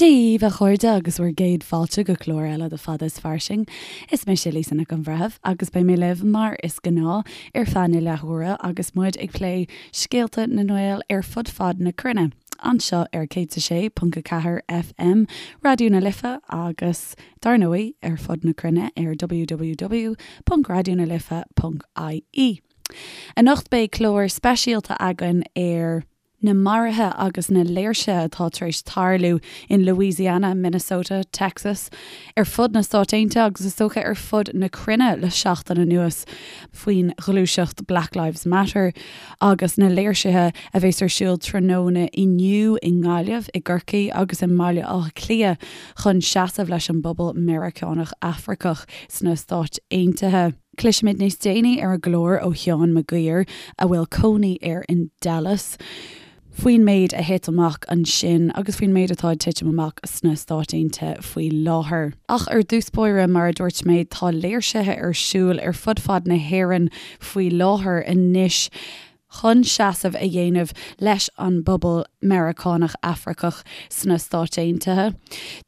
Dia dhaoibh, a chairde, agus bhur gcéad fáilte go clár eile de Fada is Fairsing. Is mise Lisa Nic an Bhreithimh agus beidh mé libh mar is gnáth ar feadh na leathuaire agus muid ag plé scéalta na nGael ar fud fad na cruinne, anseo ar 106.4 FM Raidió na Life agus, dar ndóigh, ar fud na cruinne ar www.raidionalife.ie. Anocht beidh clár speisialta againn ar. na maruithe agus na léirsithe atá tar éis tarlú in Louisiana, Minnesota, Texas, ar fud na Stát Aontaithe agus is dócha ar fud na cruinne le seachtain anuas faoin ghluaiseacht Black Lives Matter agus na léirsithe a bheas ar siúl tráthnóna inniu i nGaillimh, i gCorcaigh agus i mBaile Átha Cliath chun seasamh leis an bpobal Meiriceánach Afracach sna Stáit Aontaithe. Cloisfimid níos déanaí ar an gclár ó Sheán Mac Guidhir, a bhfuil cónaí air in Dallas, faoin méid a thit amach ansin agus faoin méid atá ag titim amach sna Stáit Aontaithe faoi láthair. Ach ar dtús báire, mar a dúirt mé, tá léirsithe ar siúl ar fud fad na hÉireann faoi láthair anois. chun seasamh a dhéanamh leis an bpobal Meiriceánach Afracach sna Stáit Aontaithe.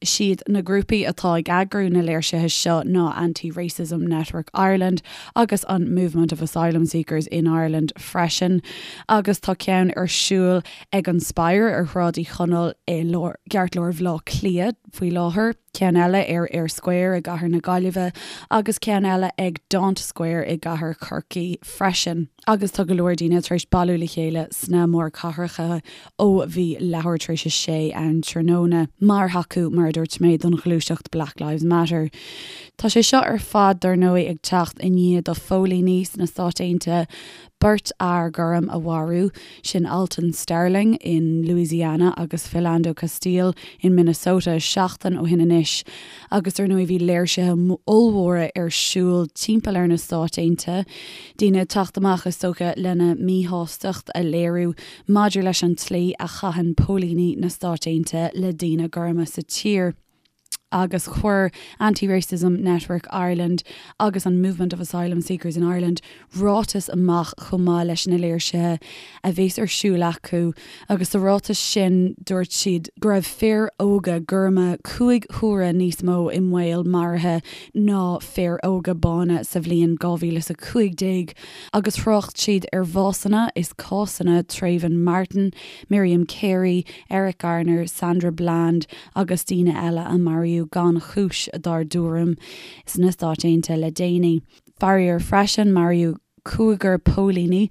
Siad na grúpaí atá ag eagrú na léirsithe seo ná Anti-Racism Network Ireland agus an Movement of Asylum Seekers in Ireland freisin agus tá ceann ar siúl ag an Spire ar Shráid Uí Chonaill i gceartlár Bhaile Átha Cliath faoi láthair. ceann eile ar Eyre Square i gcathair na Gaillimhe agus ceann eile ag Daunt Square i gcathair Chorcaí freisin. Agus tá go leor daoine tar éis bailiú le chéile sna mórchathracha ó bhí leathuair tar éis a sé ann tráthnóna mar thacú, mar a dúirt mé, don ghluaiseacht Black Lives Matter. Tá sé seo ar fad, dar ndóigh, ag teacht i ndiaidh do phóilíní sna Stáit Aontaithe beirt fhear gorm a mharú, sin Alton Sterling in Louisiana agus Philando Castile in Minnesota seachtain ó shin anois agus dar ndóigh bhí léirsithe ollmhóra ar siúl timpeall ar na Stáit Aontaithe, daoine ag teacht amach is dócha lena míshástacht a léiriú maidir leis an tslí a chaitheann póilíní na Stáit Aontaithe le daoine gorma sa tír. agus chuir Anti-Racism Network Ireland agus an Movement of Asylum Seekers in Ireland ráiteas amach chomh maith leis na léirsithe a bheas ar siúl acu agus sa ráiteas sin dúirt siad go raibh fir óga gorma 5 huaire níos mó i mbaol maraithe ná fir óga bána sa bhliain 2015 agus thrácht siad ar bhásanna is cásanna Trayvon Martin, Miriam Carey, Eric Garner, Sandra Bland agus daoine eile a maraíodh gan chúis, dár dtuairim, sna Stáit Aontaithe le déanaí. Faraor freisin, maraíodh cúigear póilíní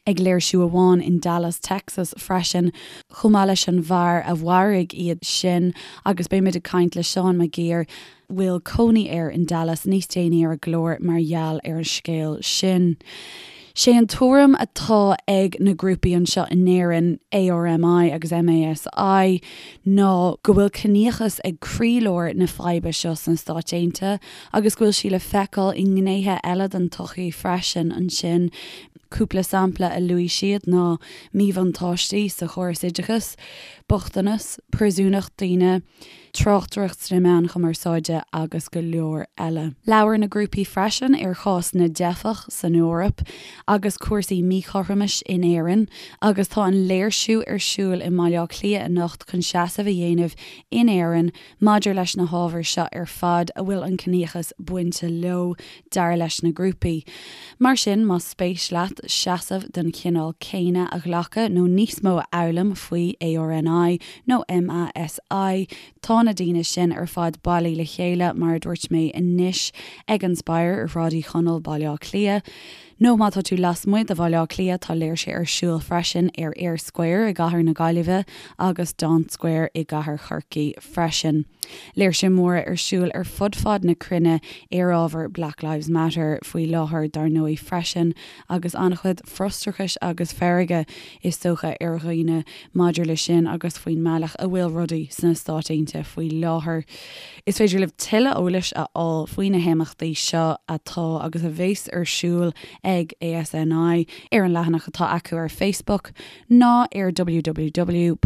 ag léirsiú amháin in Dallas, Texas freisin, chomh maith leis an bhfear a mharaigh iad sin agus beimid ag caint le Seán Mac Guidhir, bhfuil cónaí air in Dallas, níos déanaí ar an gclár mar gheall ar an scéal sin. Sé an tuairim atá ag na grúpaí anseo in Éirinn, ARMI agus MASI, ná go bhfuil ciníochas ag croílár na faidhbe seo sna Stáit Aontaithe agus go bhfuil sí le feiceáil i ngnéithe eile den tsochaí freisin ansin. Cúpla sampla a luaigh siad ná míbhuntáistí sa chóras oideachais, bochtanas, príosúnacht daoine, tráchtaireacht sna meáin chumarsáide agus go leor eile. Labhair na grúpaí freisin ar chás na dteifeach san Eoraip agus cúrsaí míchothromais in Éirinn agus tá an léirsiú ar siúl i mBaile Átha Cliath anocht chun seasamh a dhéanamh in Éirinn maidir leis na hábhair seo ar fad a bhfuil an ciníochas bainte leo, dar leis na grúpaí. Mar sin, más spéis leat seasamh den chineál céanna a ghlacadh nó níos mó a fhoghlaim faoi ARNI nó MASI, tá na daoine sin ar fad bailí le chéile, mar a dúirt mé, anois ag an Spire ar Shráid Uí Chonaill, Baile Átha Cliath. Nó má tá tú lasmuigh de Bhaile Átha Cliath, tá léirsithe ar siúl freisin ar Eyre Square i gcathair na Gaillimhe agus Daunt Square i gcathair Chorcaí freisin. Léirsithe móra ar siúl ar fud fad na cruinne ar ábhar Black Lives Matter faoi láthair dar ndóigh freisin agus an-chuid frustrachais agus feirge is dócha ar dhaoine maidir le sin agus faoin mbealach a bhfuil rudaí sna Stáit Aontaithe faoi láthair. Is féidir libh tuilleadh eolais a fháil faoi na himeachtaí seo atá agus a bheas ar siúl ag ASNI ar an leathanach atá acu ar Facebook ná ar www.arn.ie.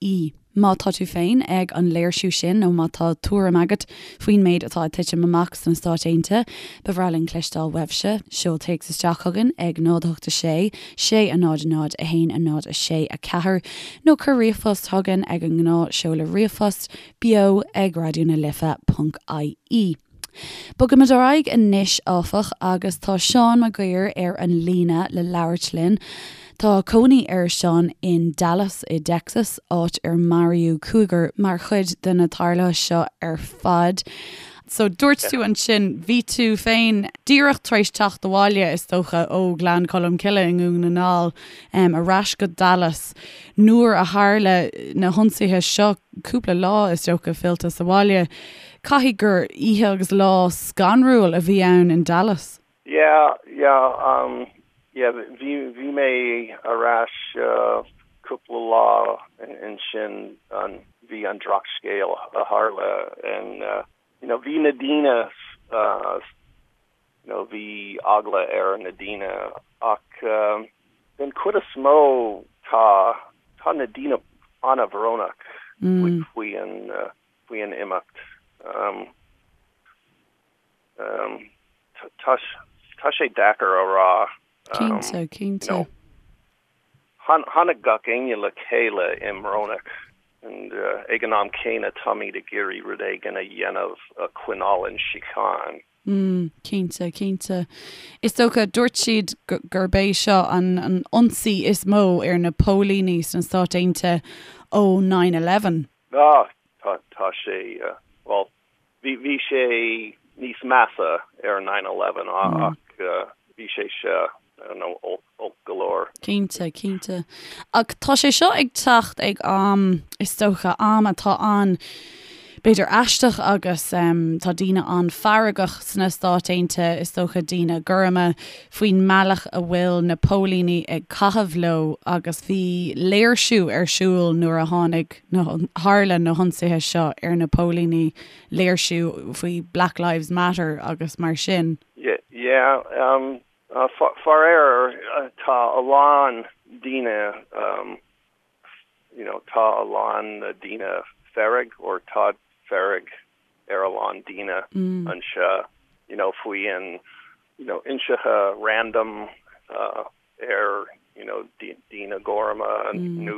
ie. Má tá tú féin ag an léirsiú sin nó má tá tuairim agat faoin méid atá ag titim amach sna Stáit Aontaithe, ba bhreá linn cloisteáil uaibhse. Seol téacs isteach chugainn ag 0 8 6 6 0 0 1 0 6 4 nó cuir ríomhphost chugainn ag an ngnáth seoladh ríomhphost, beo ag raidió na life ponc ie. Bogaimid ar aghaidh anois, áfach, agus tá Seán Mac Guidhir ar an líne le labhairt linn. Tá cónaí ar Seán in Dallas i dTexas, áit ar maraíodh cúigear mar chuid de na tarluithe seo ar fad. So, dúirt tú ansin, bhí tú féin díreach tar éis teacht abhaile, is dócha, ó Ghleann Cholm Cille i nDún na nGall, ar ais go Dallas nuair a tharla na hionsaithe seo, cúpla lá, is dócha, fillte sa bhaile. Caithfidh gur oíche agus lá scanrúil a bhí ann in Dallas. Yeah, yeah, um, yeah, bhí, bhí mé ar ais cúpla lá ansin an, bhí an drochscéal a tharla and, you know, bhí na daoine, you know, bhí eagla ar na daoine ach den chuid is mó tá, tá na daoine an-bhrónach faoi an, faoi an imeacht. Tá, tá sé deacair a rá. Cinnte, cinnte. Tháinig gach éinne le chéile i mbrónach and ag an am céanna táimid ag iarraidh rud éigin a dhéanamh a choinneáil an síocháin. Mm, cinnte, cinnte. Is dócha, dúirt siad gurb é seo an an ionsaí is mó ar na póilíní sna Stáit Aontaithe ó 9/11. Ah, tá, tá sé, bhuel, bhí, bhí sé níos measa ar 9/11 ach bhí sé seo, I don't know, olc, olc go leor. Cinnte, cinnte. Ach tá sé seo ag teacht ag am, is dócha, am atá an, b'fhéidir aisteach agus tá daoine an-fheargach sna Stáit Aontaithe, is dócha daoine gorma, faoin mbealach a bhfuil na póilíní ag caitheamh leo agus bhí léirsiú ar siúl nuair a tháinig na, tharla na hionsaithe seo ar na póilíní, léirsiú faoi Black Lives Matter agus mar sin. Yeah, faraor tá a lán daoine you know tá a lán daoine fearg or tá fearg ar a lán daoine anseo you know faoi an you know ionsaithe random ar you know daoine gorma nó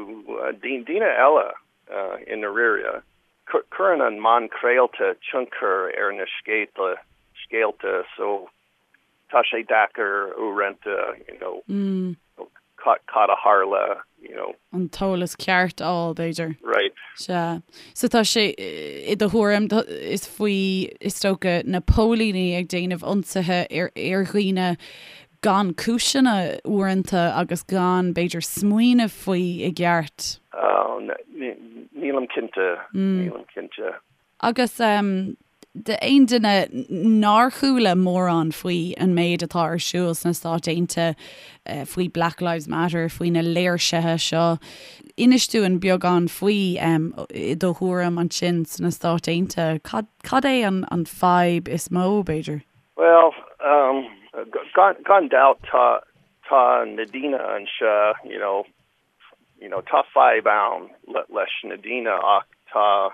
daoine eile i ndáiríre. Cuireann an meán craolta tionchar ar na scéalta scéalta so tá sé deacair uaireanta you know cad a tharla you know. an t-eolas ceart a fháil b'fhéidir. Right. Sea. So tá sé, i do thuairim, is faoi, is dócha, na póilíní ag déanamh ionsaithe ar ar dhaoine gan cúiseanna uaireanta agus gan, b'fhéidir, smaoineamh faoi i gceart. Oh, nílim cinnte, nílim cinnte. Agus d'aon duine nár chuala mórán faoi an méid atá ar siúl sna Stáit Aontaithe, faoi Black Lives Matter, faoi na léirsithe seo, inis dúinn beagán faoi, i do thuairim ansin sna Stáit Aontaithe. Cad, cad é an, an fadhb is mó, b'fhéidir? Bhuel, gan, gan dabht tá, tá na daoine anseo, you know, you know, tá fadhb ann leis na daoine ach tá,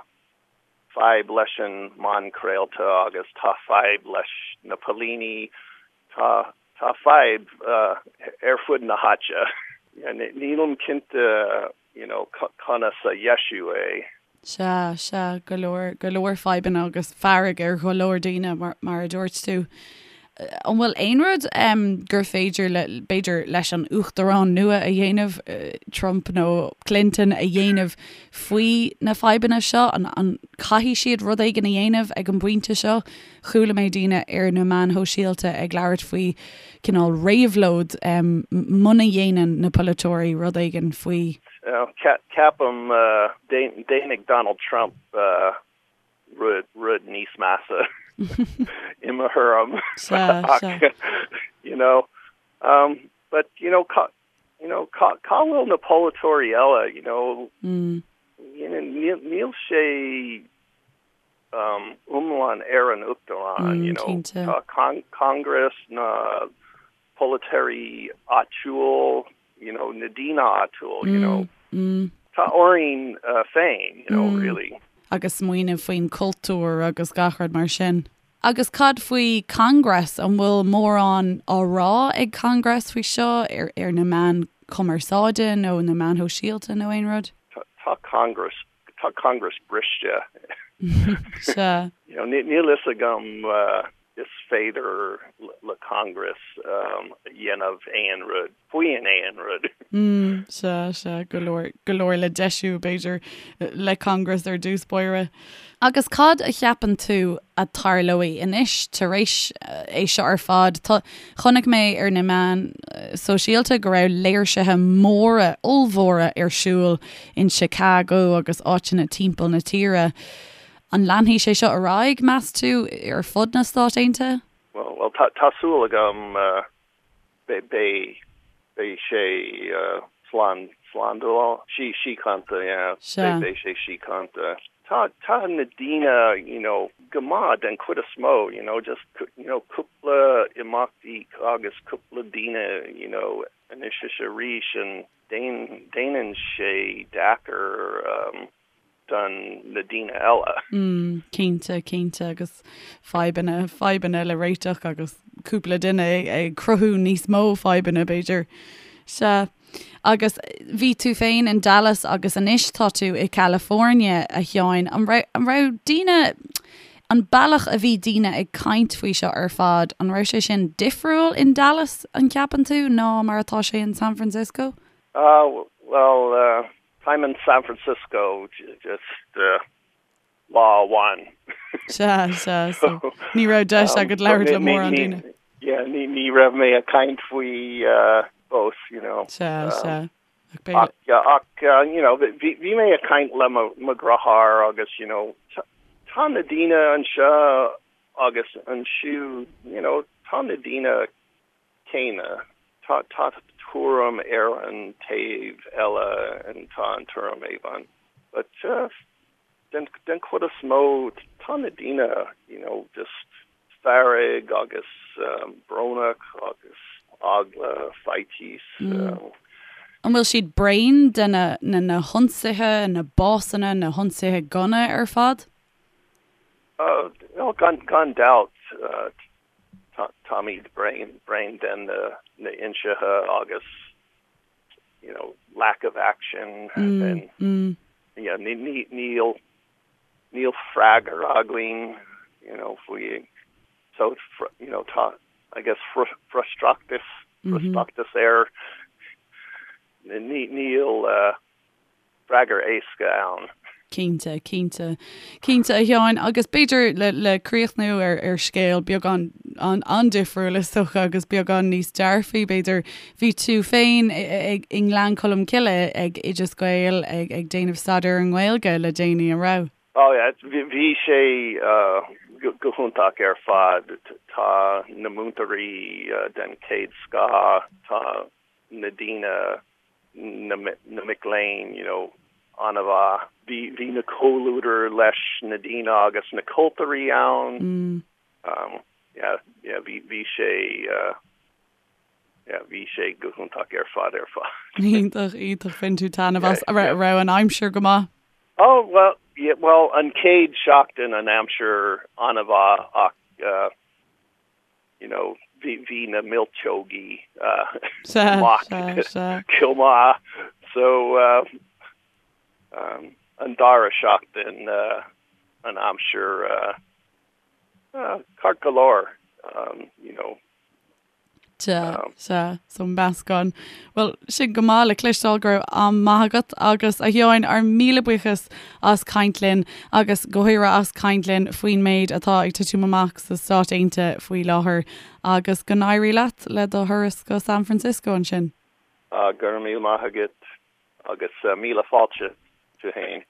fadhb leis an meán craolta agus tá fadhb leis na póilíní, tá tá fadhb ar fud na háite. Nílim cinnte you know conas a dheisiú é. Sea, sea, go leor, go leor fadhbanna agus fearg ar go leor daoine mar, mar a dúirt tú. An bhfuil aon rud gur féidir le, b'fhéidir, leis an uachtarán nua a dhéanamh, Trump nó Clinton a dhéanamh faoi na fadhbanna seo? An caithfidh siad rud éigin a dhéanamh ag an bpointe seo? Chuala mé daoine ar na meáin shóisialta ag labhairt faoi cineál réabhlóid muna dhéanann na polaiteoirí rud éigin faoi. Ceapaim déanfaidh Donald Trump rud, rud níos measa i mo thuairim ach you know but you know cá you know cá cá bhfuil na polaiteoirí eile you know you know níl níl sé um iomlán ar an uachtarán you know tá con Congress na polaiteoirí áitiúil you know na daoine áitiúil you know. Tá orainn féin, you know, really. Agus smaoineamh faoin cultúr agus gach rud mar sin. Agus cad faoi Congress, an bhfuil mórán á rá ag Congress faoi seo ar ar na meáin chumarsáide nó na meáin shóisialta nó aon rud? Tá Congress, tá Congress briste. Sea. You know, níl fhios agam is féidir le Congress a dhéanamh aon rud faoin aon rud. Sea, sea, go leor, go leor le deisiú, b'fhéidir, le Congress ar dtús báire. Agus cad a cheapann tú a tarlóidh anois tar éis é seo ar fad? Tá, chonaic mé ar na meáin sóisialta go raibh léirsithe móra, ollmhóra ar siúl in Chicago agus áiteanna timpeall na tíre. An leanfaidh sé seo ar aghaidh, meas tú, ar fud na Stát Aontaithe? Bhuel, tá súil agam beidh beidh sé slán slándáil sí síochánta yeah beidh beidh sé síochánta. Tá tá na daoine you know go maith den chuid is mó you know just you know cúpla imeachtaí agus cúpla daoine you know anois is arís and déan déanann sé deacair um, don na daoine eile. Mm, cinnte, cinnte, agus fadhbanna, fadhbanna le réiteach agus cúpla duine ag cruthú níos mó fadhbanna, b'fhéidir. Sea. Agus bhí tú féin in Dallas agus anois tá tú i California, a Sheáin. An raibh, an raibh daoine, an bealach a bhí daoine ag caint faoi seo ar fad, an raibh sé sin difriúil in Dallas, an gceapann tú, ná mar atá sé in San Francisco? Ah, bhuel, eh, Táim in San Francisco just lá amháin. Sea, sea, so ní raibh deis agat labhairt le mórán daoine. Yeah, ní ní raibh mé ag caint faoi fós, you know. Sea, sea. Ach, ach, you know, bhí bhí mé ag caint le mo mo dheartháir agus, you know, tá na daoine anseo agus ansiúd, you know, tá na daoine céanna. Tá tá tuairim ar an taobh eile and tá an tuairim amháin. But den den chuid is mó tá na daoine you know just fearg agus brónach agus eagla, faitíos. An bhfuil siad bréan de na na na hionsaithe, na básanna, na hionsaithe gunna ar fad? Well gan gan dabht Táimid bréan bréan den na hionsaithe agus you know lack of action and yeah ní ní níl níl freagra againn you know faoi so you know tá I guess frustrachas frustrachas air ní níl freagra éasca ann. Cinnte, cinnte. Cinnte, a Sheáin, agus b'fhéidir le, le críochnú ar, ar scéal beagán an-difriúil is dócha agus beagán níos dearfaí, b'fhéidir, bhí tú féin i nGleann Cholm Cille ag Oideas Gael ag, ag déanamh staidéar ar an nGaeilge le déanaí, an raibh? Oh yeah, bhí sé go hiontach ar fad. Tá na múinteoirí den chéad scoth, tá na daoine na na mic léinn you know an-mhaith. Bhí bhí na comhluadar leis na daoine agus na cultúirí ann. Mm. Um yeah yeah bhí bhí sé uh yeah bhí sé go hiontach ar fad ar fad. Iontach iontach bhain tú taitneamh as. Raibh raibh an aimsir go maith? Oh well yeah well an chéad seachtain an aimsir an-mhaith ach uh you know, bhí, bhí na milseogaí amach chomh maith. So, um, an dara seachtain uh, an aimsir uh, uh, ceart go leor, um, you know. Sea, sea, so meascán. Bhuel, sin go maith le cloisteáil go raibh am maith agat agus a Sheáin, ár míle buíochas as caint linn agus go háirithe as caint linn faoin méid atá ag titim amach sna Stáit Aontaithe faoi láthair agus go n-éirí leat le do thuras go San Francisco ansin. Go raibh míle maith agat agus míle fáilte tú fhéin.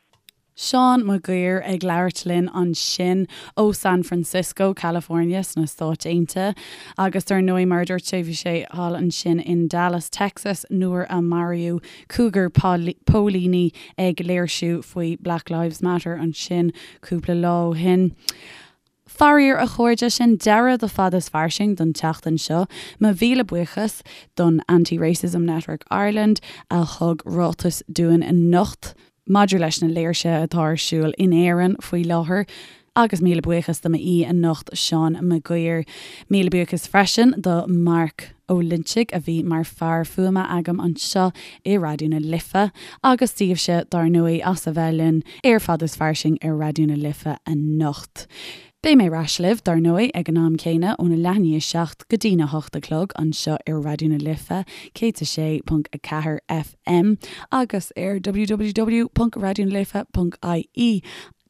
Seán Mac Guidhir ag labhairt linn ansin ó San Francisco, California sna Stáit Aontaithe. Agus dar ndóigh, mar a dúirt sé, bhí sé thall ansin in Dallas, Texas nuair a maraíodh cúigear póilíní ag léirsiú faoi Black Lives Matter ansin cúpla lá ó shin. Faraor, a chairde, sin deireadh do Fada is Fairsing don tseachtain seo. Mo mhíle buíochas don Anti-Racism Network Ireland a thug ráiteas dúinn anocht maidir leis na léirsithe atá ar siúl in Éirinn faoi láthair. Agus míle buíochas do m'aoi anocht, Seán Mac Guidhir. Míle buíochas freisin do Mark Ó Loinsigh a bhí mar fear fuaime agam anseo i Raidió na Life agus daoibhse, dár ndóigh, as a bheith linn ar Fada is Fairsing ar Raidió na Life anocht. Beidh mé ar ais libh, dár ndóigh, ag an am céanna, óna leath i ndiaidh 7 go dtína hocht a chlog anseo ar Raidió na Life 106.4 FM agus ar www.raidionalife.ie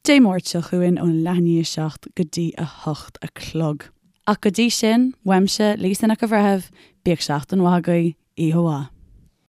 Dé Máirt seo chugainn óna leath i ndiaidh 7 go dtí a hocht a chlog. Ach go dtí sin, uaimse, Lisa Nic an Bhreithimh, bíodh seachtain mhaith agaibh, oíche mhaith.